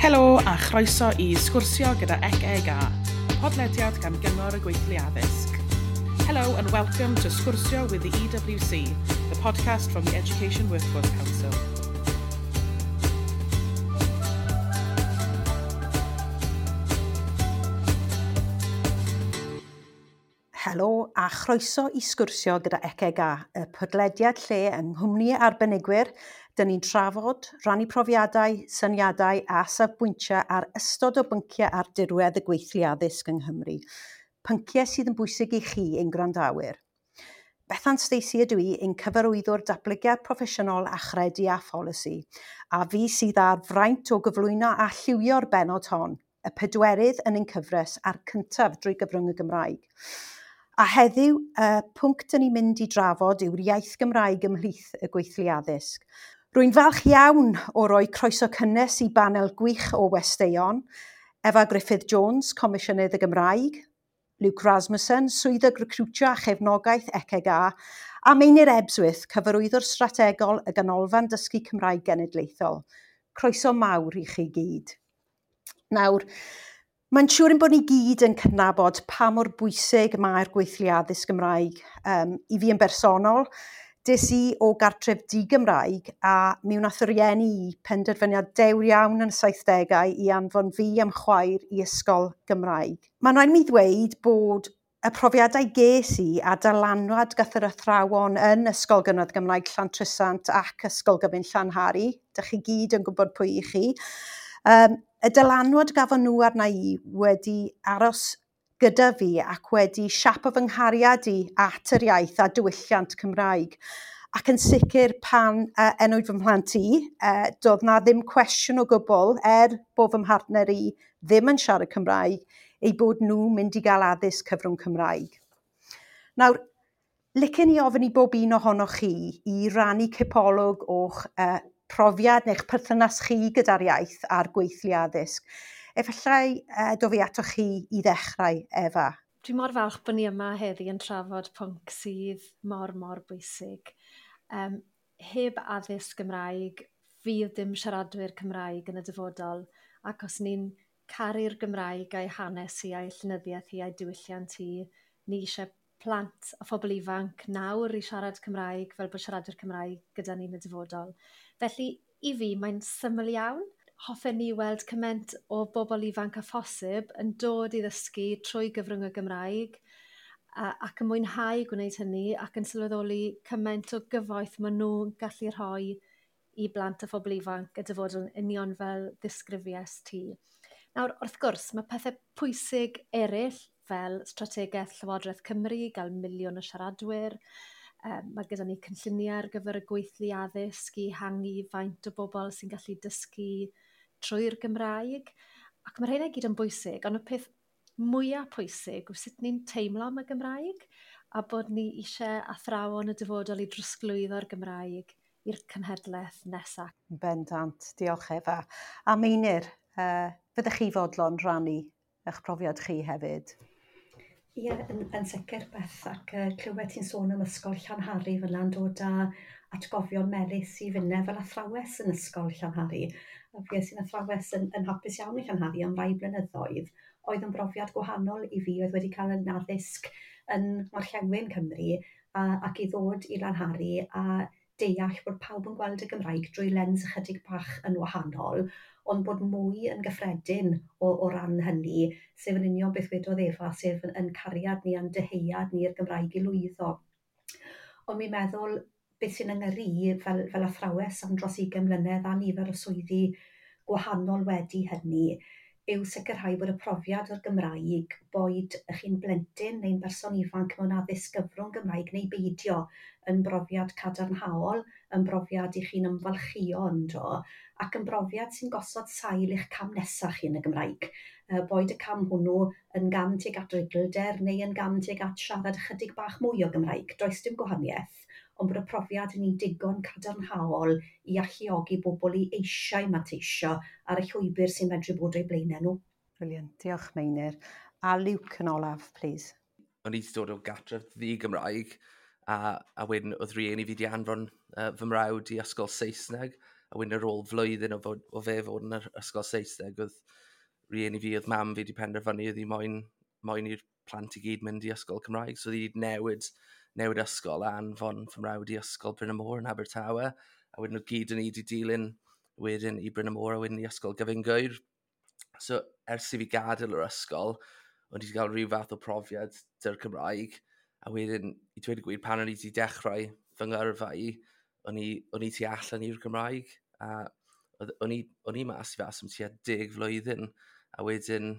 Helo a chroeso i Sgwrsio gyda ECEGA, podlediad gan Gyngor y Gweithlu Addysg. Hello and welcome to Sgwrsio with the EWC, the podcast from the Education Workforce Council. Helo a chroeso i sgwrsio gyda ECEGA, y podlediad lle yng nghwmni arbenigwyr, dyn ni'n trafod, rannu profiadau, syniadau a safbwyntiau ar ystod o bynciau ar dirwedd y gweithlu addysg yng Nghymru. Pynciau sydd yn bwysig i chi ein gwrandawyr. Bethan Stacey ydw i, ein cyfarwyddwr datblygiad proffesiynol a chredu a pholisi, a fi sydd â'r fraint o gyflwyno a lliwio'r bennod hon, y pedwerydd yn ein cyfres a'r cyntaf drwy gyfrwng y Gymraeg. A heddiw, y pwnc dyn ni'n mynd i drafod yw'r iaith Gymraeg ymhlith y gweithlu addysg. Rwy'n falch iawn o roi croeso cynnes i banel gwych o westeion, Efa Gruffudd Jones, Comisiynydd y Gymraeg, Luke Rasmussen, Swyddog Recrwtio a Chefnogaeth ECEGA, a Meinir Ebsworth, Cyfarwyddwr Strategol y Ganolfan Dysgu Cymraeg Genedlaethol. Croeso mawr i chi gyd. Nawr, mae'n siŵr ein bod ni gyd yn cydnabod pa mor bwysig mae'r gweithlu addysg Gymraeg. I fi yn bersonol, des i o gartref di-Gymraeg a mi wnaeth y rieni i penderfyniad dewr iawn yn y 70au i anfon fi am chwaer i ysgol Gymraeg. Mae'n rhaid mi ddweud bod y profiadau ges i a dylanwad gath yr athrawon yn Ysgol Gynradd Gymraeg Llantrisant ac Ysgol Gyfun Llanhari, dych chi gyd yn gwybod pwy i chi, y dylanwad gafon nhw arna i wedi aros gyda fi ac wedi siapo fy nghariad i at yr iaith a diwylliant Cymraeg. Ac yn sicr pan enwyd fy mhlant i, doedd na ddim cwestiwn o gwbl, er bod fy mhartner i ddim yn siarad Cymraeg, eu bod nhw'n mynd i gael addysg cyfrwng Cymraeg. Nawr, licen i ofyn i bob un ohonoch chi i rannu cipolwg o'ch profiad neu'ch perthynas chi gyda'r iaith a'r gweithlu addysg. Efallai dof i atoch chi i ddechrau, Efa. Dwi mor falch bod ni yma heddi yn trafod pwnc sydd mor, mor bwysig. Heb addysg Gymraeg, fydd dim siaradwyr Cymraeg yn y dyfodol, ac os ni'n caru'r Gymraeg a'i hanes hi, a'i llenyddiaeth hi, a'i diwylliant hi, ni eisiau plant a phobl ifanc nawr i siarad Cymraeg fel bod siaradwyr Cymraeg gyda ni yn y dyfodol. Felly, i fi, mae'n syml iawn. Hoffen ni weld cymaint o bobl ifanc â phosib yn dod i ddysgu trwy gyfrwng y Gymraeg ac yn mwynhau gwneud hynny ac yn sylweddoli cymaint o gyfoeth maen nhw'n gallu rhoi i blant a phobl ifanc y dyfodol yn union fel ddisgrifiais ti. Nawr, wrth gwrs, mae pethau pwysig eraill fel strategaeth Llywodraeth Cymru, gael 1 miliwn o siaradwyr. Mae gyda ni cynlluniau ar gyfer y gweithlu addysg i ehangu faint o bobl sy'n gallu dysgu trwy'r Gymraeg. Ac mae rheina i gyd yn bwysig, ond y peth mwyaf pwysig yw sut ni'n teimlo am y Gymraeg a bod ni eisiau athrawon y dyfodol i drosglwyddo'r Gymraeg i'r cenhedlaeth nesaf. Bendant, diolch Efa. A Meinir, fyddech chi fodlon rhannu eich profiad chi hefyd? Ie, yn sicr Beth, ac clywed ti'n sôn am ysgol Llanhari fel yna'n dod â atgofion melys i finne fel athrawes yn ysgol Llanhari. A fues i'n athrawes yn hapus iawn i Llanhari am rai blynyddoedd, oedd yn brofiad gwahanol i fi, oedd wedi cael yn addysg yn Ngorllewin Cymru ac i ddod i Lanhari a deall bod pawb yn gweld y Gymraeg drwy lens ychydig bach yn wahanol, ond bod mwy yn gyffredin o ran hynny, sef yn union beth wedodd Efa, sef yn cariad ni a'n dyheuad ni i'r Gymraeg i lwyddo. Ond mi'n meddwl beth sy'n yng i fel athrawes am dros 20 mlynedd a nifer o swyddi gwahanol wedi hynny, yw sicrhau bod y profiad o'r Gymraeg, boed chi'n blentyn neu'n berson ifanc mewn addysg gyfrwng Gymraeg neu beidio, yn brofiad cadarnhaol, yn brofiad i chi'n ymfalchïo ynddo, ac yn brofiad sy'n gosod sail i'ch cam nesaf chi yn y Gymraeg. Boed y cam hwnnw yn gam tuag at ruglder neu yn gam tuag at siarad ychydig bach mwy o Gymraeg. Does dim gwahaniaeth, ond bod y profiad yn un digon cadarnhaol i alluogi bobl i eisiau manteisio ar y llwybr sy'n medru bod o'u blaenau nhw. Brilliant, diolch Meinir. A Luke yn olaf, please. O'n i wedi dod o gartref ddi-Gymraeg, a wedyn oedd rhieni fi wedi anfon fy mrawd i ysgol Saesneg. A wedyn ar ôl flwyddyn o fe fod yn yr ysgol Saesneg, oedd rieni fi, oedd mam fi wedi penderfynu oedd hi moyn i'r plant i gyd mynd i ysgol Cymraeg. So oedd hi wedi newid ysgol a anfon fy mrawd i ysgol Bryn y Môr yn Abertawe. A wedyn nhw gyd yn ni wedi dilyn wedyn i Bryn y Môr a wedyn i ysgol Gyfun Gŵyr. So ers i fi gadael yr ysgol, o'n i wedi cael rhyw fath o profiad dy'r Cymraeg. A wedyn, i dweud y gwir, pan o'n i wedi dechrau fy ngyrfa i, o'n i tu allan i'r Gymraeg. A o'n i mas i fas am tua 10 flwyddyn. A wedyn,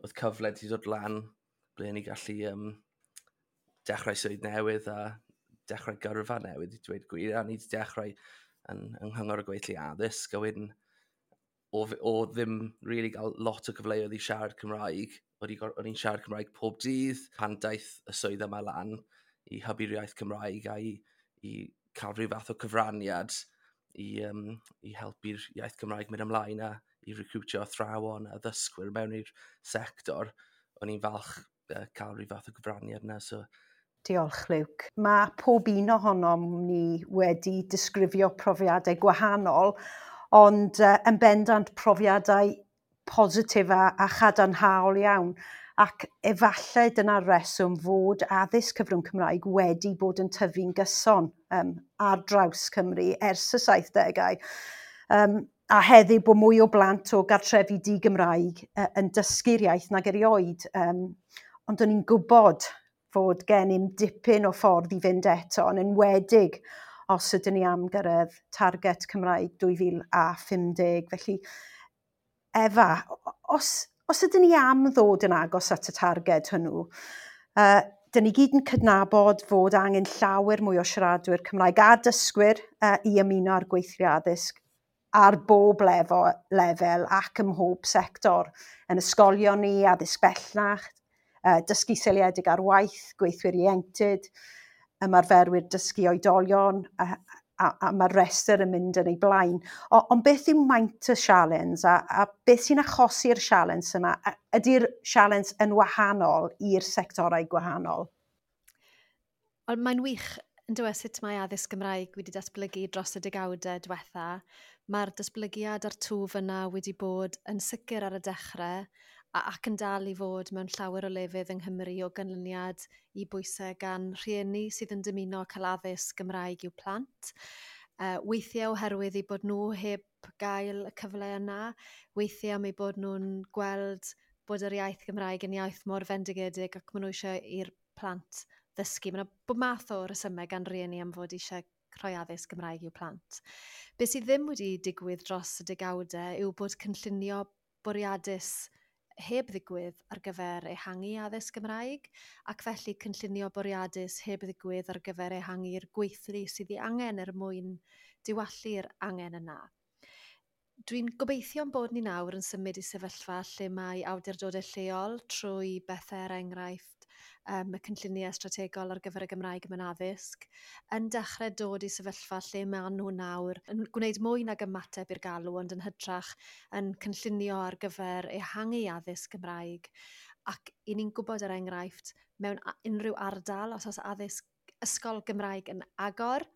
oedd cyfle wedi dod lan ble o'n i gallu dechrau swydd newydd a dechrau gyrfa newydd, i dweud gwir. A ni wedi dechrau yng Nghyngor y Gweithlu Addysg. A wedyn, o ddim really gael lot o gyfleoedd i siarad Cymraeg, o'n i'n siarad Cymraeg pob dydd pan daeth y swydd yma lan i hybu'r iaith Cymraeg a i cael rhyw fath o cyfraniad i helpu'r iaith Cymraeg mynd ymlaen a i recrwtio athrawon a ddysgwyr mewn i'r sector. O'n i'n falch cael rhyw fath o gyfraniad yna. So. Diolch, Luke. Mae pob un ohonom ni wedi disgrifio profiadau gwahanol, ond yn bendant profiadau positif a chadarnhaol iawn. Ac efallai dyna'r reswm fod addysg cyfrwng Cymraeg wedi bod yn tyfu'n gyson ar draws Cymru ers y 70au. A heddiw bod mwy o blant o gartrefi di-Gymraeg yn dysgu'r iaith nag erioed. Ond o'n i'n gwybod fod gennym dipyn o ffordd i fynd eto, yn enwedig os ydyn ni am gyrraedd target Cymraeg 2050. Felly, Efa, os ydyn ni am ddod yn agos at y targed hwnnw, dyn ni gyd yn cydnabod fod angen llawer mwy o siaradwyr Cymraeg a dysgwyr i ymuno â'r gweithlu addysg ar bob lefel ac ym mhob sector. Yn ysgolion ni, addysg bellach, dysgu seiliedig ar waith, gweithwyr ieuenctid, ymarferwyr dysgu oedolion, a mae'r rhestr yn mynd yn ei blaen. Ond beth yw maint y sialens a beth sy'n achosi'r sialens yma? Ydy'r sialens yn wahanol i'r sectorau gwahanol? Wel, mae'n wych yn dweud sut mae addysg Gymraeg wedi datblygu dros y degawdau diwetha. Mae'r datblygiad a'r twf yna wedi bod yn sicr ar y dechrau ac yn dal i fod mewn llawer o lefydd yng Nghymru o ganlyniad i bwysau gan rhieni sydd yn dymuno cael addysg Gymraeg i'w plant. Weithiau oherwydd eu bod nhw heb gael y cyfle yna, weithiau am eu bod nhw'n gweld bod yr iaith Gymraeg yn iaith mor fendigedig ac maen nhw eisiau i'r plant ddysgu. Mae yna bob math o resymau gan rieni am fod eisiau rhoi addysg Gymraeg i'w plant. Be sydd ddim wedi digwydd dros y degawdau yw bod cynllunio bwriadus heb ddigwydd ar gyfer ehangu addysg Gymraeg, ac felly cynllunio bwriadus heb ddigwydd ar gyfer ehangu'r gweithlu sydd ei angen er mwyn diwallu'r angen yna. Dwi'n gobeithio'n bod ni nawr yn symud i sefyllfa lle mae awdurdodau lleol trwy bethau er enghraifft y cynlluniau strategol ar gyfer y Gymraeg mewn addysg, yn dechrau dod i sefyllfa lle maen nhw nawr yn gwneud mwy nag ymateb i'r galw, ond yn hytrach yn cynllunio ar gyfer ehangu addysg Gymraeg. Ac i ni'n gwybod er enghraifft, mewn unrhyw ardal, os oes addysg ysgol Gymraeg yn agor,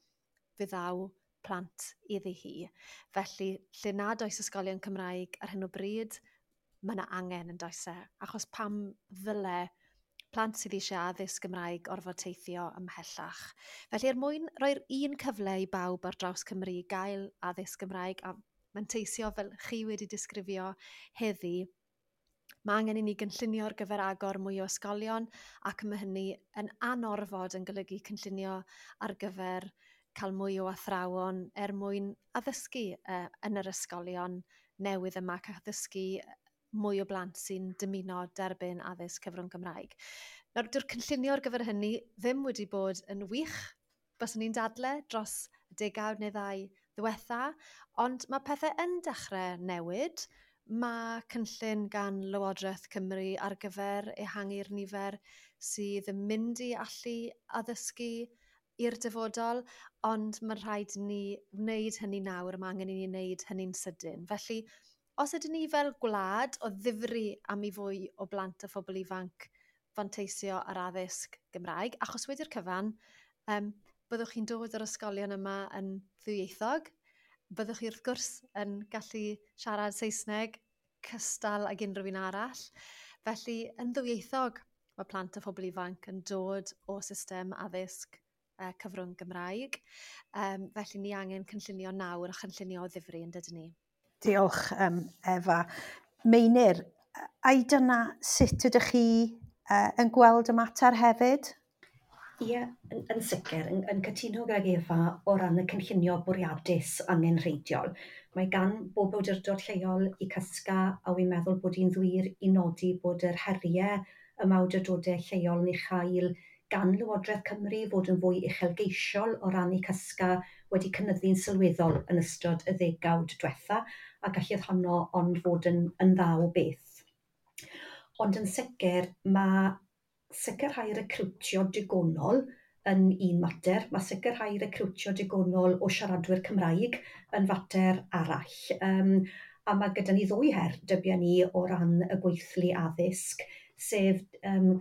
fe ddaw plant iddi hi. Felly, lle nad oes ysgolion Cymraeg ar hyn o bryd, mae yna angen yn does e, achos pam ddyle plant sydd eisiau addysg Gymraeg orfod teithio ymhellach. Felly, er mwyn rhoi'r un cyfle i bawb ar draws Cymru gael addysg Gymraeg a manteisio fel chi wedi disgrifio heddi, mae angen i ni gynllunio ar gyfer agor mwy o ysgolion, ac mae hynny yn anorfod yn golygu cynllunio ar gyfer cael mwy o athrawon er mwyn addysgu yn yr ysgolion newydd yma ac addysgu mwy o blant sy'n dymuno derbyn addysg cyfrwng Gymraeg. Nawr, dyw'r cynllunio ar gyfer hynny ddim wedi bod yn wych, byswn ni'n dadle dros y degawd neu ddau ddiwetha, ond mae pethau yn dechrau newid. Mae cynllun gan Lywodraeth Cymru ar gyfer ehangu'r nifer sydd yn mynd i allu addysgu i'r dyfodol, ond mae'n rhaid i ni wneud hynny nawr, mae angen i ni wneud hynny'n sydyn. Felly, os ydyn ni fel gwlad o ddifri am i fwy o blant a phobl ifanc fanteisio ar addysg Gymraeg, achos wedi'r cyfan, byddwch chi'n dod o'r ysgolion yma yn ddwyieithog, Byddwch chi wrth gwrs yn gallu siarad Saesneg cystal ag unrhyw un arall. Felly, yn ddwyieithog, mae plant a phobl ifanc yn dod o system addysg cyfrwng Gymraeg. Felly ni angen cynllunio nawr a chynllunio o ddifri, yn dydyn ni? Diolch, Efa. Meinir, ai dyna sut ydych chi yn gweld y mater hefyd? Ie, yn sicr, yn cytuno gydag Efa o ran y cynllunio bwriadus angenrheidiol. Mae gan bob awdurdod lleol i CYSGA, a wi'n meddwl bod hi'n ddwir i nodi bod yr heriau y mae awdurdodau lleol yn ei chael gan Lywodraeth Cymru fod yn fwy uchelgeisiol o ran eu CYSGA wedi cynyddu'n sylweddol yn ystod y ddegawd diwetha, a galluodd honno ond fod yn dda o beth. Ond yn sicr, mae sicrhau recriwtio digonol yn un mater. Mae sicrhau recriwtio digonol o siaradwyr Cymraeg yn fater arall. A mae gyda ni ddwy her, dybia ni, o ran y gweithlu addysg, sef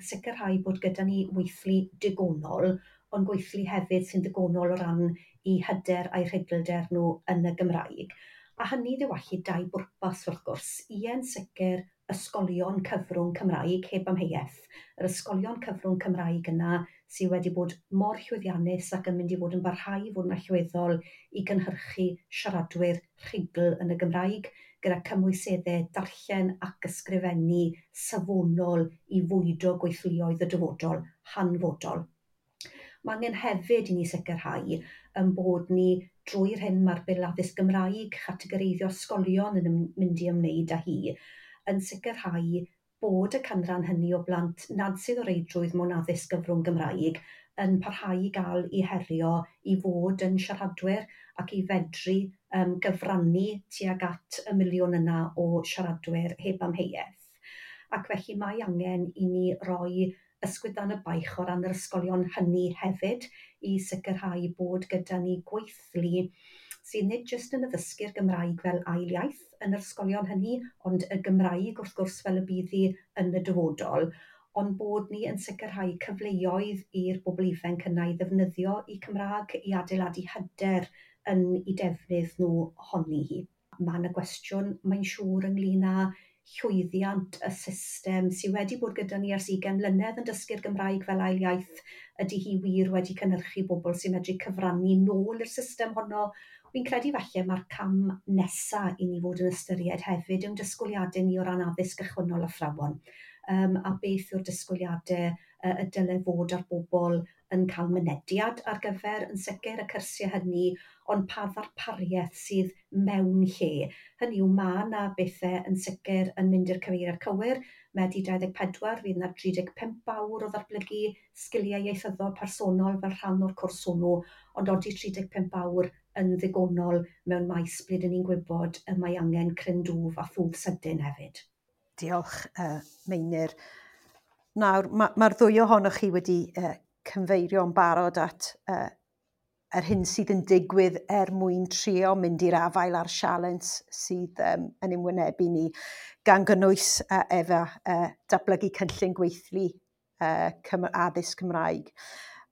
sicrhau bod gyda ni weithlu digonol, ond gweithlu hefyd sy'n ddigonol o ran i hyder a'i rhuglder nhw yn y Gymraeg. A hynny ddiwallu dau bwrpas wrth gwrs. Ie'n sicr ysgolion cyfrwng Cymraeg heb amheuaeth. Yr ysgolion cyfrwng Cymraeg yna sydd wedi bod mor llwyddiannus ac yn mynd i fod yn barhau i fod yn allweddol i gynhyrchu siaradwyr rhugl yn y Gymraeg, gyda cymwyseddau darllen ac ysgrifennu safonol i fwydo gweithluoedd y dyfodol hanfodol. Mae angen hefyd i ni sicrhau yn bod ni drwy'r hyn mae'r Bil Addysg Gymraeg, chategoreiddio ysgolion yn mynd i ymwneud â hi, yn sicrhau bod y canran hynny o blant nad sydd o reidrwydd mewn addysg gyfrwng Gymraeg yn parhau i gael eu herio i fod yn siaradwyr ac i fedru gyfrannu tuag at y miliwn yna o siaradwyr heb amheuaeth. Ac felly mae angen i ni roi ysgwydd dan y baich o ran yr ysgolion hynny hefyd i sicrhau bod gyda ni gweithlu sydd nid jyst yn addysgu'r Gymraeg fel ail iaith yn yr ysgolion hynny, ond y Gymraeg wrth gwrs fel y bydd hi yn y dyfodol, ond bod ni yn sicrhau cyfleoedd i'r bobl ifanc yna i ddefnyddio eu Cymraeg i adeiladu hyder yn eu defnydd nhw ohoni hi. Mae yna gwestiwn, mae'n siŵr, ynglyn â llwyddiant y system sydd wedi bod gyda ni ers 20 mlynedd yn dysgu'r Gymraeg fel ail iaith. Ydy hi wir wedi cynhyrchu bobl sy'n medru cyfrannu nôl i'r system honno? Fi'n credu falle mae'r cam nesa i ni fod yn ystyried hefyd yw'n disgwyliadau ni o ran addysg gychwynnol athrawon. A beth yw'r disgwyliadau y dyle fod ar bobl yn cael mynediad ar gyfer yn sicr y cyrsiau hynny, ond pa ddarpariaeth sydd mewn lle. Hynny yw, mae yna bethau yn sicr yn mynd i'r cyfeiriad cywir. Medi 24 fydd yna 35 awr o ddatblygu sgiliau ieithyddol personol fel rhan o'r cwrs hwnnw, ond odi 35 awr yn ddigonol mewn maes ble dyn ni'n gwybod y mae angen cryn dwf a thwf sydyn hefyd. Diolch, Meinir. Nawr, mae'r ddwy ohonoch chi wedi cyfeirio'n barod at yr hyn sydd yn digwydd er mwyn trio mynd i'r afael â'r sialens sydd yn ymwynebu ni, gan gynnwys efo datblygu cynllun gweithlu addysg Cymraeg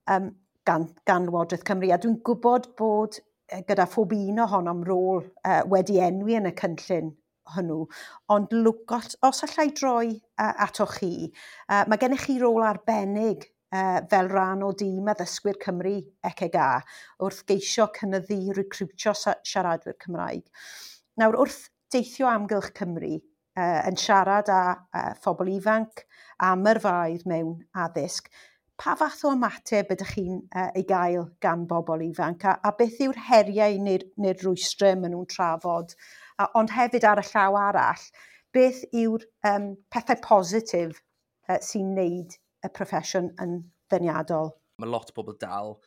gan Lywodraeth Cymru. A dwi'n gwybod bod gyda phob un ohonom rôl wedi enwi yn y cynllun hwnnw, ond Luke, os allai droi atoch chi, mae gennych chi rôl arbennig fel rhan o dîm addysgwyr Cymru ECGA wrth geisio cynyddu recriwtio siaradwyr Cymraeg. Nawr, wrth deithio amgylch Cymru yn siarad â phobl ifanc am yrfaoedd mewn addysg, pa fath o ymateb ydych chi'n ei gael gan bobl ifanc a beth yw'r heriau neu'r rwystrau maen nhw'n trafod? Ond hefyd ar y llaw arall, beth yw'r pethau positif sy'n neud y proffesiwn yn ddeniadol? Mae lot o bobl dal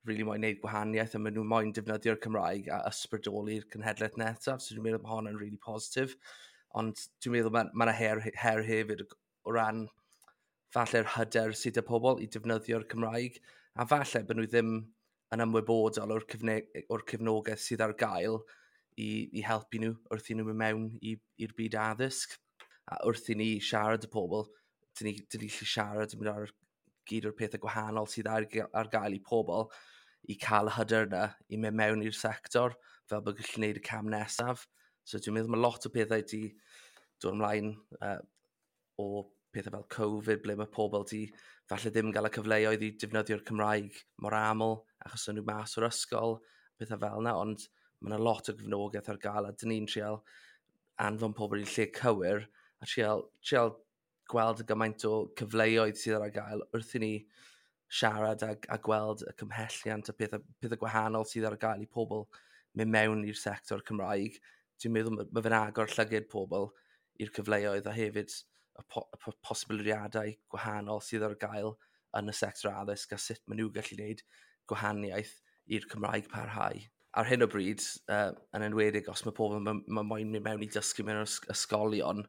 really moyn neud gwahaniaeth a maen nhw moyn defnyddio'r Cymraeg a ysbrydoli'r cenhedlaeth nesaf, so dwi'n meddwl bod hon yn really positif. Ond dwi'n meddwl mae yna her hefyd o ran falle'r hyder sydd â pobl i defnyddio'r Cymraeg, a falle bod nhw ddim yn ymwybodol o'r cefnogaeth sydd ar gael i helpu nhw wrth i nhw mynd mewn i'r byd addysg. A wrth i ni siarad y pobl, dyn ni gallu siarad yn mynd ar gyd o'r pethau gwahanol sydd ar gael i pobl i cael y hyder yna i mynd mewn i'r sector. fel bod gallu gwneud y cam nesaf. So dwi'n meddwl mae lot o pethau di dod ymlaen o pethau fel Covid, ble mae pobl di falle ddim gael y cyfleoedd i defnyddio'r Cymraeg mor aml, achos o'n nhw mas o'r ysgol, pethau fel yna, ond mae yna lot o gefnogaeth ar gael, a dyn ni'n trial anfon pobl i'r lle cywir, a trial gweld y gymaint o cyfleoedd sydd ar gael wrth i ni siarad a gweld y cymhelliant a pethau gwahanol sydd ar gael i pobl mynd mewn i'r sector Cymraeg. Dwi'n meddwl mae fe'n agor llygad pobl i'r cyfleoedd a hefyd y posibiliadau gwahanol sydd ar gael yn y sector addysg a sut maen nhw gallu gwneud gwahaniaeth i'r Cymraeg parhau. Ar hyn o bryd, yn enwedig os mae pobl ma moyn mynd mewn i dysgu mewn ysgolion,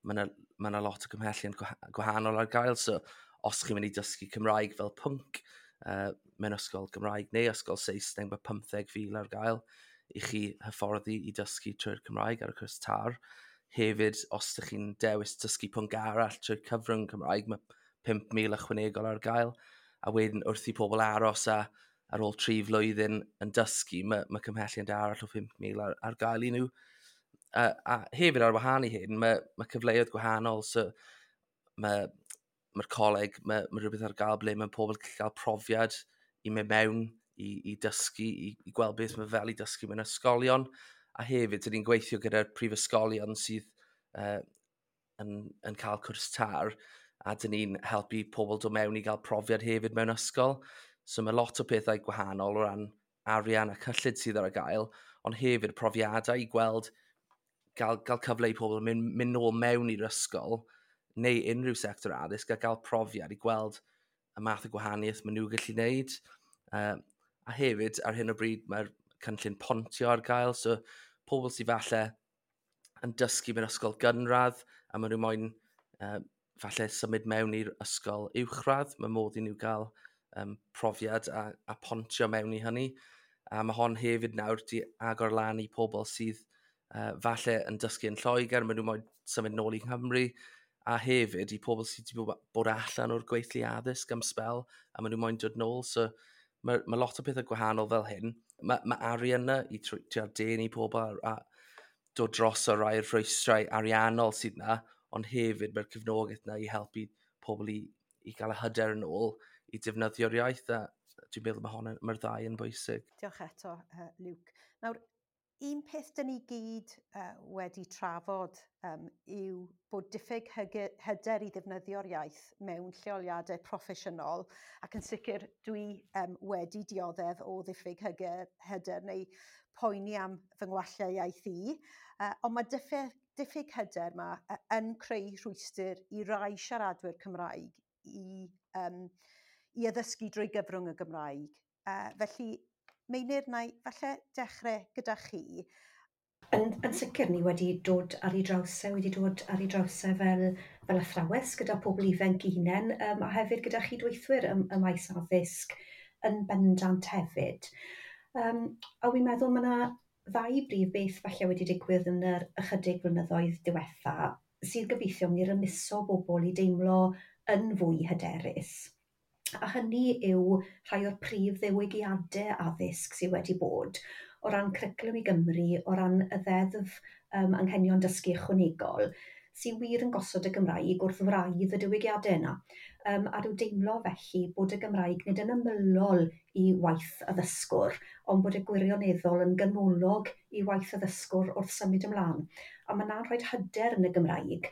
mae yna lot o gymhelliant gwahanol ar gael. So, os chi'n mynd i dysgu Cymraeg fel pwnc mewn ysgol Gymraeg neu ysgol Saesneg, mae 15,000 ar gael i chi hyfforddi i dysgu trwy'r Cymraeg ar y cwrs TAR. Hefyd, os ydych chi'n dewis dysgu pwnc arall trwy'r cyfrwng Cymraeg, mae 5,000 ychwanegol ar gael. A wedyn wrth i pobl aros a ar ôl 3 flwyddyn yn dysgu, mae cymhelliant arall o 5,000 ar gael i nhw. A hefyd ar wahân i hyn, mae cyfleoedd gwahanol. So mae'r coleg, mae rhywbeth ar gael ble mae pobl yn gallu cael profiad i mynd mewn i dysgu, i gweld beth mae fel i dysgu mewn ysgolion. A hefyd, dyn ni'n gweithio gyda'r prifysgolion sydd yn cael cwrs TAR, a dyn ni'n helpu pobl dod mewn i gael profiad hefyd mewn ysgol. So mae lot o pethau gwahanol o ran arian a cyllid sydd ar gael, ond hefyd profiadau i gweld, gael cyfle i pobl mynd nôl mewn i'r ysgol neu unrhyw sector addysg a gael profiad i gweld y math o gwahaniaeth maen nhw gallu gwneud. A hefyd, ar hyn o bryd, mae'r cynllun pontio ar gael, so pobl sydd falle yn dysgu mewn ysgol gynradd a maen nhw moyn falle symud mewn i'r ysgol uwchradd, mae modd i nhw gael profiad a pontio mewn i hynny. A mae hon hefyd nawr di agor lan i pobl sydd falle yn dysgu yn Lloegr, maen nhw moyn symud nôl i Nghymru, a hefyd i pobl sydd wedi bod allan o'r gweithlu addysg am sbel a maen nhw moyn dod nôl. So mae lot o pethau gwahanol fel hyn. Mae arian yna i trial denu pobl a dod dros o rai o'r rhwystrau ariannol sydd yna, ond hefyd mae'r cefnogaeth yna i helpu pobl i gael y hyder yn ôl i defnyddio'r iaith, a dwi'n meddwl mae'r ddau yn bwysig. Diolch eto, Luke. Nawr, un peth dyn ni gyd wedi trafod yw bod diffyg hyder i ddefnyddio'r iaith mewn lleoliadau proffesiynol, ac yn sicr dwi wedi dioddef o ddiffyg hyder neu poeni am fy ngwallau iaith i, ond mae diffyg hyder yma yn creu rhwystr i rai siaradwyr Cymraeg i addysgu drwy gyfrwng y Gymraeg. Felly, Meinir, na i falle dechrau gyda chi. Yn sicr, ni wedi dod ar ei draws e, fel athrawes gyda pobl ifanc eu hunain, a hefyd gyda chydweithwyr y maes addysg yn bendant hefyd. A wi'n meddwl mae yna ddau brif beth falle wedi digwydd yn yr ychydig blynyddoedd diwetha sydd gobeithio mynd i rymuso bobl i deimlo yn fwy hyderus. A hynny yw rhai o'r prif ddiwygiadau addysg sydd wedi bod o ran Cwricwlwm i Gymru, o ran y ddeddf anghenion dysgu ychwanegol, sydd wir yn gosod y Gymraeg wrth wraidd y diwygiadau yna. A rhyw deimlo felly bod y Gymraeg nid yn ymylol i waith addysgwr, ond bod y gwirioneddol yn ganolog i waith addysgwr wrth symud ymlaen. A mae yna'n rhoi hyder yn y Gymraeg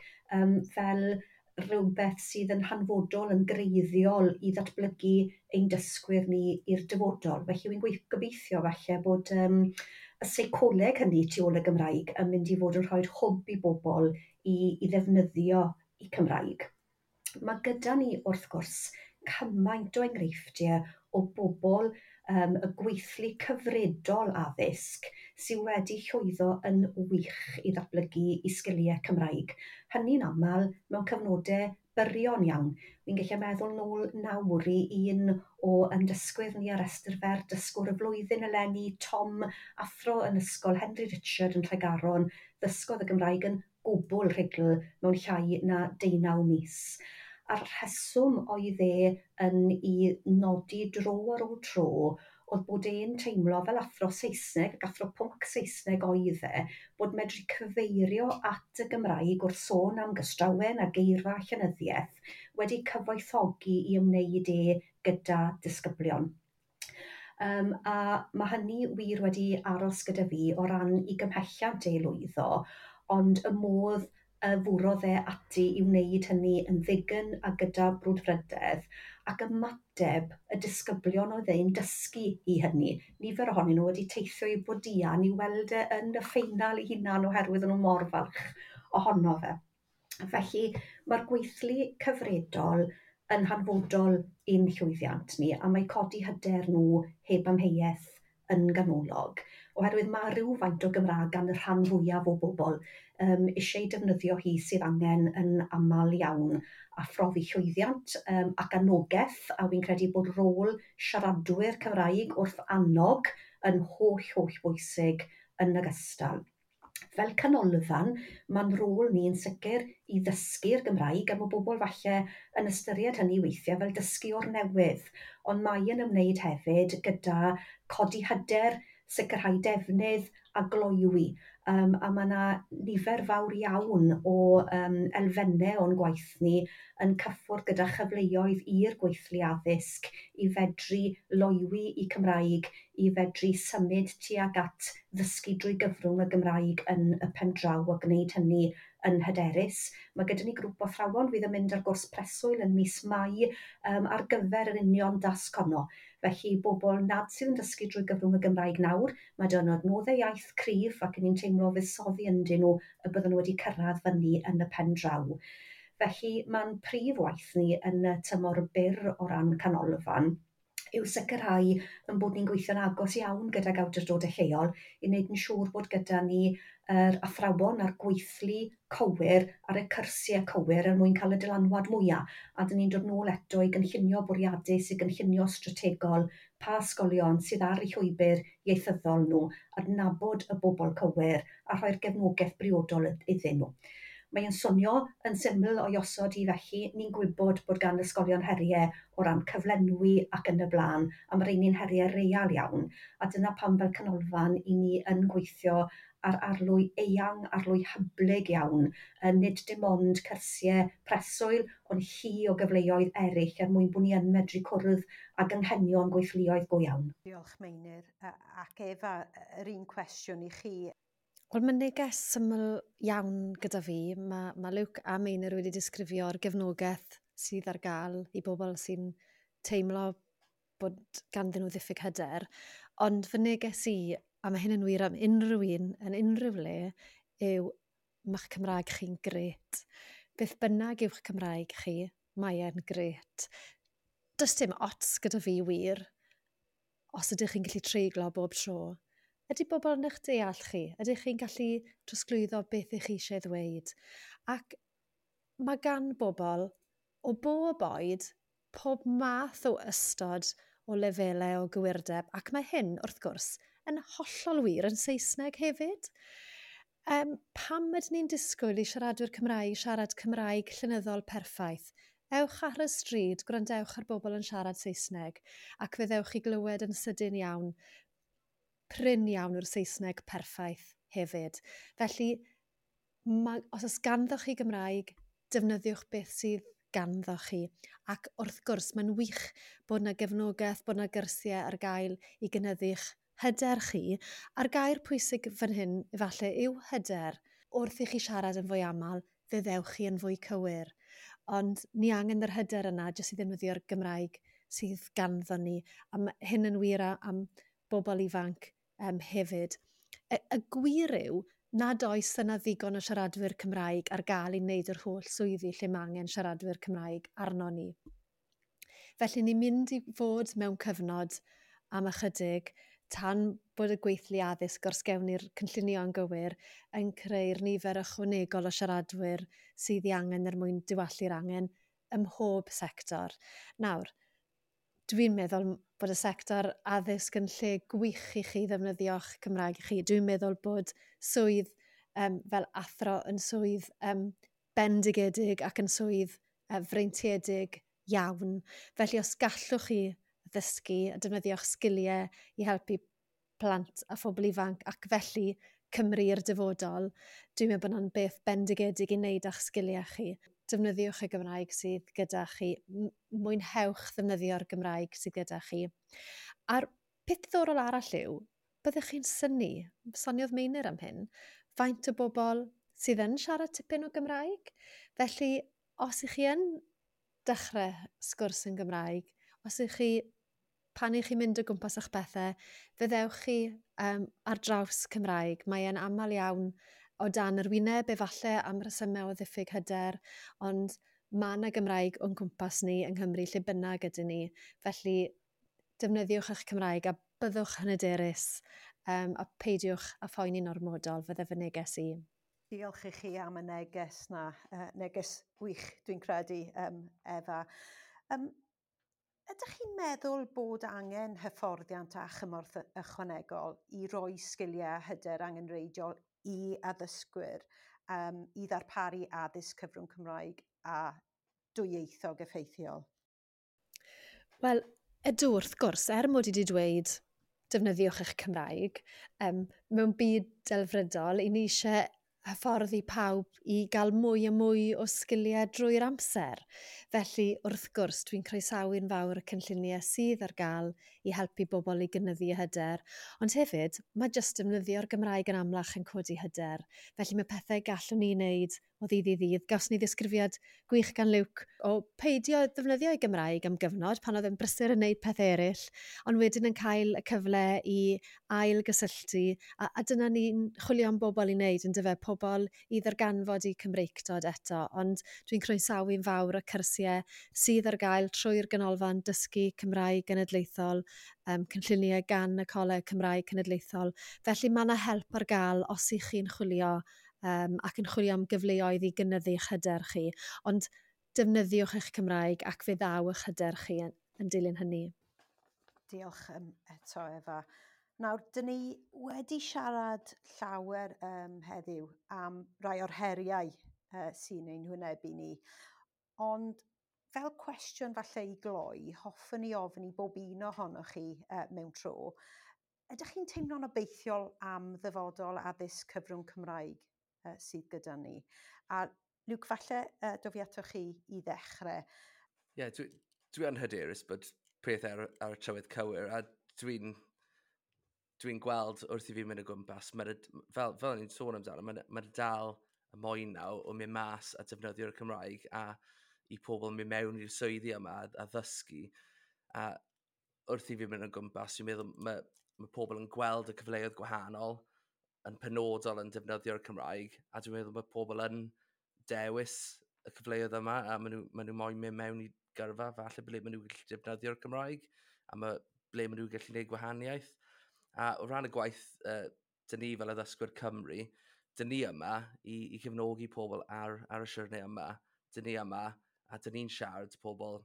fel rhywbeth sydd yn hanfodol, yn greiddiol i ddatblygu ein dysgwyr ni i'r dyfodol. Felly wy'n gobeithio falle bod y seicoleg hynny tu ôl y Gymraeg yn mynd i fod yn rhoi hwb i bobl i ddefnyddio i Cymraeg. Mae gyda ni wrth gwrs cymaint o enghreifftiau o bobl y gweithlu cyfredol addysg sydd wedi llwyddo yn wych i ddatblygu i sgiliau Cymraeg. Hynny'n aml mewn cyfnodau byrion iawn. Fi'n gallu meddwl nôl nawr i un o dysgwyr ni ar restr fer dysgwr y flwyddyn eleni, Tom, athro yn ysgol Henry Richard yn Tregaron, ddysgodd y Gymraeg yn gwbl rhugl mewn llai na 19 mis. A'r rheswm oedd e yn i nodi dro ar ôl tro oedd bod e'n teimlo fel athro Saesneg ac athro pwnc Saesneg oedd e, bod medru cyfeirio at y Gymraeg wrth sôn am gystrawen a geirfa llenyddiaeth wedi cyfoethogi i ymwneud e gyda disgyblion. A mae hynny wir wedi aros gyda fi o ran i gymhelliant e lwyddo, ond y modd fwrodd e ati i wneud hynny yn ddigon a gyda brwdfrydedd ac ymateb y disgyblion oedd e'n dysgu i hynny. Nifer ohonyn nhw wedi teithio i Bodian i weld e yn y ffeinal ei hunan oherwydd o'n nhw mor falch ohono fe. Felly mae'r gweithlu cyfredol yn hanfodol i'n llwyddiant ni, a mae codi hyder nhw heb amheuaeth yn ganolog, oherwydd mae rhywfaint o Gymraeg gan y rhan fwyaf o bobl eisiau defnyddio hi sydd angen yn aml iawn a phrofi llwyddiant ac anogaeth, a fi'n credu bod rôl siaradwyr Cymraeg wrth annog yn holl, holl bwysig yn ogystal. Fel canolfan, mae'n rôl ni yn sicr i ddysgu'r Gymraeg, a mae bobl falle yn ystyried hynny weithiau fel dysgu o'r newydd, ond mae yn ymwneud hefyd gyda codi hyder, sicrhau defnydd a gloywi. A mae yna nifer fawr iawn o elfennau o'n gwaith ni yn cyffwrdd gyda chyfleoedd i'r gweithlu addysg i fedru loywi i Cymraeg, i fedru symud tuag at ddysgu drwy gyfrwng y Gymraeg yn y pen draw a gwneud hynny yn hyderus. Mae gyda ni grŵp o athrawon fydd yn mynd ar gwrs preswyl yn mis Mai ar gyfer yr union dasg honno. Felly bobl nad sydd yn dysgu drwy gyfrwng y Gymraeg nawr, mae 'da nhw adnoddau iaith cryf ac ni'n teimlo fuddsoddi ynddyn nhw y bydden nhw wedi cyrraedd fyny yn y pen draw. Felly mae'n prif waith ni yn y tymor byr o ran canolfan yw sicrhau yn bod ni'n gweithio'n agos iawn gydag awdurdodau lleol i wneud yn siŵr bod gyda ni yr athrawon a'r gweithlu cywir ar y cyrsiau cywir er mwyn cael y dylanwad mwyaf. A dyn ni'n dod nôl eto i gynllunio bwriadus, i gynllunio strategol, pa ysgolion sydd ar eu llwybr ieithyddol nhw, adnabod y bobl cywir a rhoi'r gefnogaeth briodol iddyn nhw. Mae'n swnio yn syml o'i osod i felly, ni'n gwybod bod gan ysgolion heriau o ran cyflenwi ac yn y blaen, a mae rheini'n heriau real iawn, a dyna pam fel canolfan i ni yn gweithio ar arlwy eang, arlwy hyblyg iawn, nid dim ond cyrsiau preswyl, ond llu o gyfleoedd eraill er mwyn bod ni yn medru cwrdd ag anghenion gweithluoedd go iawn. Diolch Meinir, ac Efa, yr un cwestiwn i chi. Wel, mae neges syml iawn gyda fi. Mae Luke a Meinir wedi disgrifio'r gefnogaeth sydd ar gael i bobl sy'n teimlo bod ganddyn nhw ddiffyg hyder. Ond fy neges i, a mae hyn yn wir am unrhyw un yn unrhyw le, yw ma'ch Cymraeg chi'n grêt. Beth bynnag yw'ch Cymraeg chi, mae e'n grêt. Does dim ots gyda fi wir, os ydych chi'n gallu treiglo bob tro. Ydy bobl yn eich deall chi? Ydych chi'n gallu trosglwyddo beth ych chi eisiau ddweud? Ac mae gan bobl o bob oed pob math o ystod o lefelau o gywirdeb, ac mae hyn, wrth gwrs, yn hollol wir yn Saesneg hefyd. Pam ydyn ni'n disgwyl i siaradwyr Cymraeg siarad Cymraeg llenyddol perffaith? Ewch ar y stryd, gwrandewch ar bobl yn siarad Saesneg, ac fe ddewch chi glywed yn sydyn iawn, prin iawn yw'r Saesneg perffaith hefyd. Felly, os oes ganddoch chi Gymraeg, defnyddiwch beth sydd ganddoch chi. Ac wrth gwrs, mae'n wych bod yna gefnogaeth, bod yna gyrsiau ar gael i gynyddu'ch hyder chi. A'r gair pwysig fan hyn, efallai, yw hyder. Wrth i chi siarad yn fwy aml, fe ddewch chi yn fwy cywir. Ond ni angen yr hyder yna jyst i ddefnyddio'r Gymraeg sydd ganddo ni. A ma' hyn yn wir am bobl ifanc hefyd. Y gwir yw nad oes yna ddigon o siaradwyr Cymraeg ar gael i wneud yr holl swyddi lle mae angen siaradwyr Cymraeg arno ni. Felly ni'n mynd i fod mewn cyfnod am ychydig tan bod y gweithlu addysg os gewn ni'r cynllunio'n gywir yn creu'r nifer ychwanegol o siaradwyr sydd ei angen er mwyn diwallu'r angen ym mhob sector. Nawr, dwi'n meddwl bod y sector addysg yn lle gwych i chi ddefnyddio'ch Cymraeg chi. Dwi'n meddwl bod swydd fel athro yn swydd bendigedig ac yn swydd freintiedig iawn. Felly os gallwch chi ddysgu a defnyddio'ch sgiliau i helpu plant a phobl ifanc ac felly Cymru i'r dyfodol, dwi'n meddwl bod hwnna'n beth bendigedig i wneud â'ch sgiliau chi. Defnyddiwch y Gymraeg sydd gyda chi, mwynhewch ddefnyddio'r Gymraeg sydd gyda chi. A'r peth diddorol arall yw, byddwch chi'n synnu, soniodd Meinir am hyn, faint o bobl sydd yn siarad tipyn o Gymraeg. Felly, os ych chi yn dechrau sgwrs yn Gymraeg, os ych chi, pan ych chi'n mynd o gwmpas eich bethau, fe ddewch chi ar draws Cymraeg. Mae e'n aml iawn o dan yr wyneb, efallai am resymau o ddiffyg hyder, ond mae yna Gymraeg o'n cwmpas ni yng Nghymru lle bynnag ydyn ni. Felly, defnyddiwch eich Cymraeg a byddwch yn hyderus a peidiwch â phoeni'n ormodol, fydde fy neges i. Diolch i chi am y neges na, neges gwych dwi'n credu, Efa. Ydych chi'n meddwl bod angen hyfforddiant a chymorth ychwanegol i roi sgiliau a hyder angenrheidiol i addysgwyr i ddarparu addysg cyfrwng Cymraeg a dwyieithog effeithiol? Wel, ydw, wrth gwrs, er mod i wedi dweud defnyddiwch eich Cymraeg, mewn byd delfrydol, i ni eisiau hyfforddi pawb i gael mwy a mwy o sgiliau drwy'r amser. Felly, wrth gwrs, dwi'n croesawu'n fawr y cynlluniau sydd ar gael i helpu bobl i gynyddu hyder. Ond hefyd, mae jyst defnyddio'r Gymraeg yn amlach yn codi hyder. Felly mae pethau gallwn ni wneud o ddydd i ddydd. Gawson ni ddisgrifiad gwych gan Luke o peidio defnyddio ei Gymraeg am gyfnod pan oedd e'n brysur yn wneud peth eraill, ond wedyn yn cael y cyfle i ail gysylltu, a dyna ni'n chwilio am bobl i wneud, yn dyfe, pobl i ddarganfod eu Cymreictod eto, ond dwi'n croesawu'n fawr y cyrsiau sydd ar gael trwy'r Ganolfan Dysgu Cymraeg Genedlaethol, cynlluniau gan y Coleg Cymraeg Cenedlaethol. Felly mae yna help ar gael os ych chi'n chwilio ac yn chwilio am gyfleoedd i gynyddu eich hyder chi. Ond defnyddiwch eich Cymraeg ac fe ddaw eich hyder chi yn dilyn hynny. Diolch eto, Efa. Nawr, dyn ni wedi siarad llawer heddiw am rai o'r heriau sy'n ein hwynebu ni. Ond fel cwestiwn falle i gloi, hoffwn i ofyn i bob un ohonoch chi mewn tro, ydych chi'n teimlo'n obeithiol am ddyfodol addysg cyfrwng Cymraeg sydd gyda ni? A Luke, falle dof i atoch chi i ddechrau. Ie, yeah, dwi yn hyderus bod pethau ar y trywydd cywir, a dwi'n gweld wrth i fi mynd o gwmpas, fel ni'n sôn amdano, mae dal y moyn nawr o mynd mas a defnyddio'r Cymraeg a i pobl mynd mewn i'r swyddi yma a ddysgu. A wrth i fi mynd o gwmpas, dwi'n meddwl mae pobl yn gweld y cyfleoedd gwahanol yn penodol yn defnyddio'r Cymraeg, a dwi'n meddwl mae pobl yn dewis y cyfleoedd yma, a maen nhw moyn mynd mewn i gyrfa, falle ble maen nhw'n gallu defnyddio'r Cymraeg, a ble maen nhw'n gallu gwneud gwahaniaeth. A o ran y gwaith, dyn ni fel addysgwyr Cymru, dyn ni yma i cefnogi pobl ar y siwrne yma. Dyn ni yma, a dyn ni'n siarad pobl.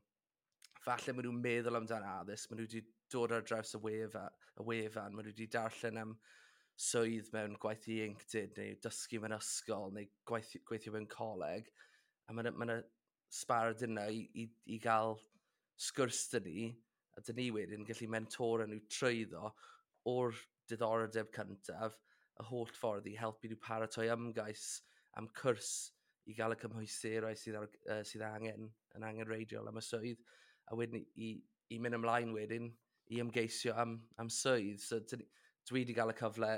Falle maen nhw'n meddwl amdano addysg, maen nhw wedi dod ar draws y wefan, maen nhw wedi darllen am swydd mewn gwaith ieuenctid, neu dysgu mewn ysgol, neu gweithio mewn coleg. A mae yna sbardun yna i gael sgwrs dyn ni, a dyn ni wedyn gallu mentora nhw trwyddo o'r diddordeb cyntaf, y holl ffordd i helpu nhw paratoi ymgais am cwrs i gael y cymhwysterau sydd angen, yn angenrheidiol am y swydd, a wedyn i mynd ymlaen wedyn i ymgeisio am swydd. So dwi wedi gael y cyfle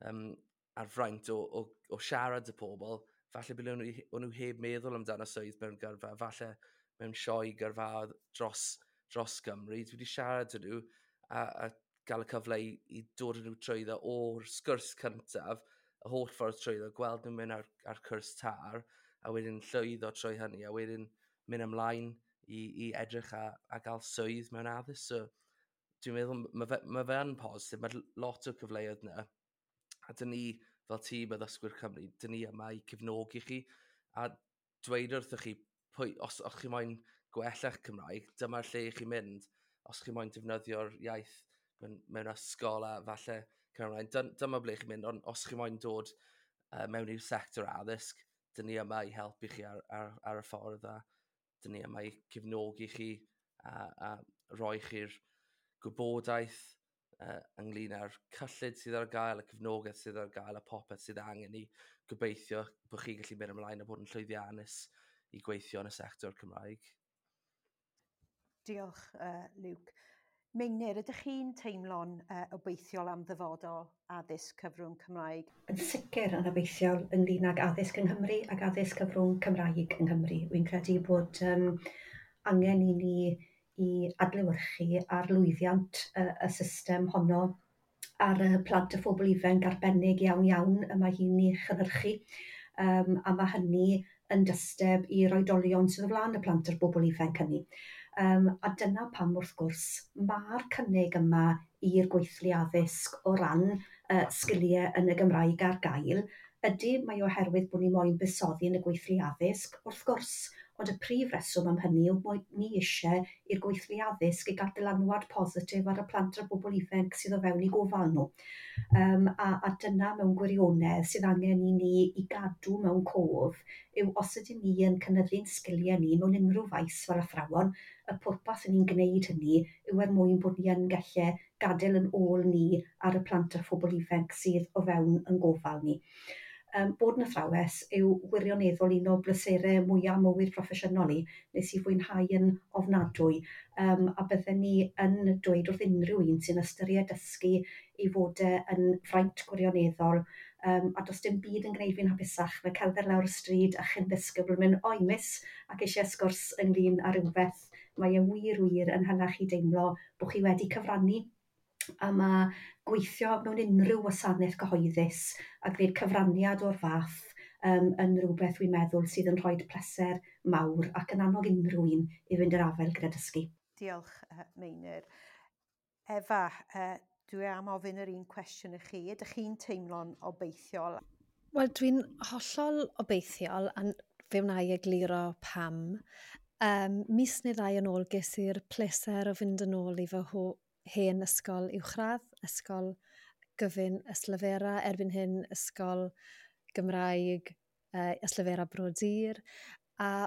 ar fraint o siarad y pobl, falle bod nhw heb meddwl amdano swydd mewn gyrfa, falle mewn sioe gyrfa dros Gymru. Dwi wedi siarad â nhw a gael y cyfle i dod â nhw trwyddo o'r sgwrs cyntaf, y holl ffordd trwyddo, gweld nhw'n mynd ar cwrs TAR, a wedyn llwyddo trwy hynny, a wedyn mynd ymlaen i edrych a gael swydd mewn addysg. So, dwi'n meddwl, mae fe yn positif, mae lot o cyfleoedd yna. A dyn ni, fel tîm addysgwyr Cymru, dyn ni yma i cefnogi chi, a dweud wrthych chi, os chi moyn gwella'ch Cymraeg, dyma'r lle i chi mynd. Os chi moyn defnyddio'r iaith mewn ysgol a falle Cymraeg, dyma ble chi'n mynd, ond os chi moyn dod mewn i'r sector addysg, dyn ni yma i helpu chi ar y ffordd, a dyn ni yma i cefnogi chi a roi chi'r gwybodaeth ynglyn â'r cyllid sydd ar gael, y cefnogaeth sydd ar gael, a popeth sydd angen i gobeithio bod chi'n gallu mynd ymlaen a bod yn llwyddiannus i gweithio yn y sector Cymraeg. Diolch, Luke. Meinir, ydych chi'n teimlo'n obeithiol am ddyfodol addysg cyfrwng Cymraeg? Yn sicr yn obeithiol ynglyn ag addysg yng Nghymru ac addysg cyfrwng Cymraeg yng Nghymru. Wy'n credu bod angen i ni i adlewyrchu ar lwyddiant y system honno ar y plant a phobl ifanc arbennig iawn iawn y mae hi'n ei chynhyrchu. A mae hynny yn dysteb i'r oedolion sydd o flaen y plant a'r bobl ifanc hynny. A dyna pam wrth gwrs mae'r cynnig yma i'r gweithlu addysg o ran sgiliau yn y Gymraeg ar gael. Ydy, mae oherwydd bod ni moyn buddsoddi yn y gweithlu addysg, wrth gwrs, ond y prif reswm am hynny yw bod ni eisiau i'r gweithlu addysg i gael dylanwad positif ar y plant a'r bobl ifanc sydd o fewn eu gofal nhw. A dyna mewn gwirionedd sydd angen i ni i gadw mewn cof yw os ydyn ni yn cynyddu'n sgiliau ni mewn unrhyw faes fel athrawon, y pwrpas yn ni'n gwneud hynny yw er mwyn bod ni yn gallu gadael yn ôl ni ar y plant a phobl ifanc sydd o fewn yn gofal ni. Bod yn athrawes yw wirioneddol un o bleserau mwyaf mywyd proffesiynol i, nes i fwynhau yn ofnadwy, a bydden ni yn dweud wrth unrhyw un sy'n ystyried dysgu i fod yn fraint gwirioneddol, a does dim byd yn gwneud fi'n hapusach na cerdded lawr y stryd a chyn ddisgybl yn mynd, "Oi miss," ac eisiau sgwrs ynglyn â rhywbeth. Mae e wir wir yn hala chi deimlo bod chi wedi cyfrannu. A mae gweithio mewn unrhyw wasanaeth cyhoeddus a gwneud cyfraniad o'r fath yn rhywbeth dwi'n meddwl sydd yn rhoi pleser mawr ac yn annog unrhyw un i fynd i'r afael gyda dysgu. Diolch, Meinir. Efa, dwi am ofyn yr un cwestiwn i chi. Ydych chi'n teimlo'n obeithiol? Wel, dwi'n hollol obeithiol, a fe wna i egluro pam. Mis neu ddau yn ôl ges i'r pleser o fynd yn ôl i fy hen ysgol uwchradd, ysgol gyfun Ystalyfera, erbyn hyn ysgol Gymraeg Ystalyfera Bro Dur, a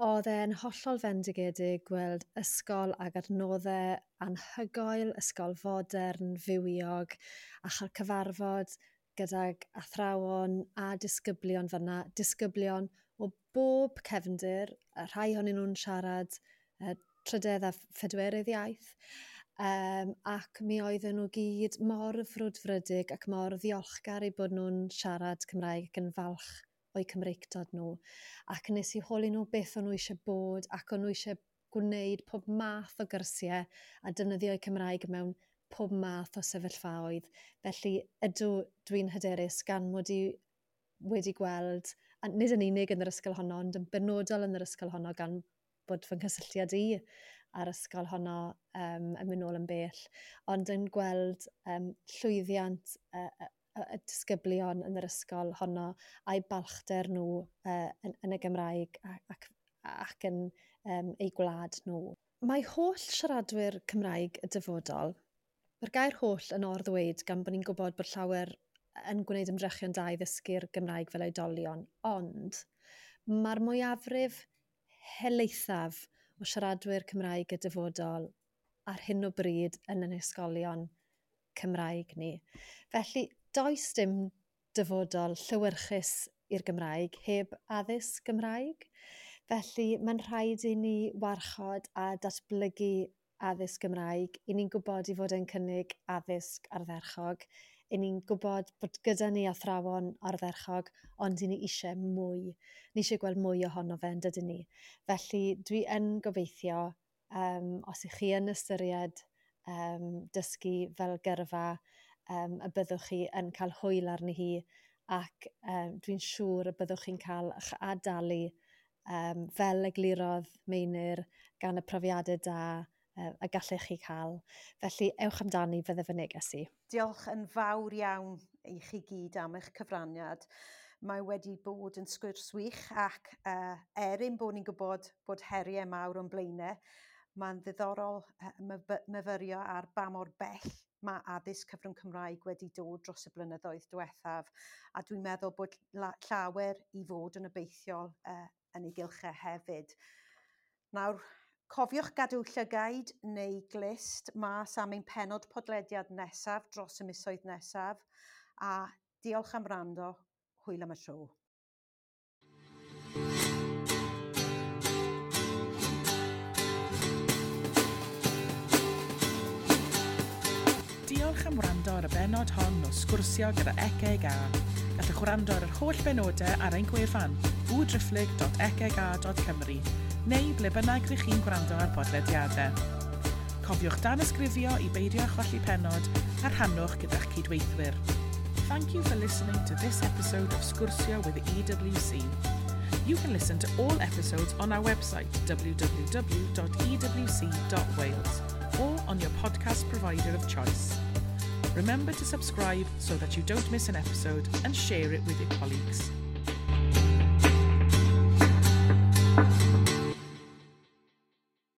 oedd e'n hollol fendigedig gweld ysgol ag adnoddau anhygoel, ysgol fodern, fywiog, a chael cyfarfod gydag athrawon a disgyblion fan'na, disgyblion o bob cefndir, a rhai ohonyn nhw'n siarad trydedd a phedwerydd iaith, ac mi oedden nhw gyd mor frwdfrydig ac mor ddiolchgar eu bod nhw'n siarad Cymraeg ac yn falch o'u Cymreictod nhw. Ac nes i holi nhw beth o'n nhw eisiau bod, ac o'n nhw eisiau gwneud pob math o gyrsiau a defnyddio'u Cymraeg mewn pob math o sefyllfaoedd. Felly ydw, dwi'n hyderus gan mod i wedi gweld, a nid yn unig yn yr ysgol honno, ond yn benodol yn yr ysgol honno gan bod fy nghysylltiad i a'r ysgol honno yn mynd nôl yn bell, ond yn gweld llwyddiant y disgyblion yn yr ysgol honno a'i balchder nhw yn y Gymraeg ac yn eu gwlad nhw. Mae holl siaradwyr Cymraeg y dyfodol, mae'r gair holl yn or-ddweud gan bod ni'n gwybod bod llawer yn gwneud ymdrechion da i ddysgu'r Gymraeg fel oedolion, ond mae'r mwyafrif helaethaf o siaradwyr Cymraeg y dyfodol ar hyn o bryd yn ein ysgolion Cymraeg ni. Felly, does dim dyfodol llewyrchus i'r Gymraeg heb addysg Gymraeg. Felly, mae'n rhaid i ni warchod a datblygu addysg Gymraeg. I ni'n gwybod i fod yn cynnig addysg ardderchog. I ni'n gwybod bod gyda ni athrawon ardderchog, ond i ni eisiau mwy. Ni eisiau gweld mwy ohono fe, yn dydyn ni. Felly dwi yn gobeithio, os ych chi yn ystyried dysgu fel gyrfa, y byddwch chi yn cael hwyl arni hi, ac dwi'n siŵr y byddwch chi'n cael eich adalu fel eglurodd Meinir gan y profiadau da y gallech chi cael. Felly, ewch amdani, fydde fy neges i. Diolch yn fawr iawn i chi gyd am eich cyfraniad. Mae wedi bod yn sgwrs wych ac er ein bod ni'n gwybod bod heriau mawr o'n blaenau, mae'n ddiddorol myfyrio ar ba mor bell mae addysg cyfrwng Cymraeg wedi dod dros y blynyddoedd diwethaf, a dwi'n meddwl bod llawer i fod yn obeithiol yn ei gylchau hefyd. Nawr, Cofiwch gadw llygaid neu glust mas am ein pennod podlediad nesaf dros y misoedd nesaf, a diolch am wrando, hwyl am y tro. Diolch am wrando ar y bennod hon o Sgwrsio gyda ECEGA. Gallwch wrando ar yr holl benodau ar ein gwefan www.ecega.cymru neu ble bynnag rych chi'n gwrando ar podlediadau. Cofiwch danysgrifio i beidio â cholli pennod a rhannwch gyda'ch cydweithwyr. Thank you for listening to this episode of Sgwrsio with the EWC. You can listen to all episodes on our website www.ewc.wales or on your podcast provider of choice. Remember to subscribe so that you don't miss an episode and share it with your colleagues.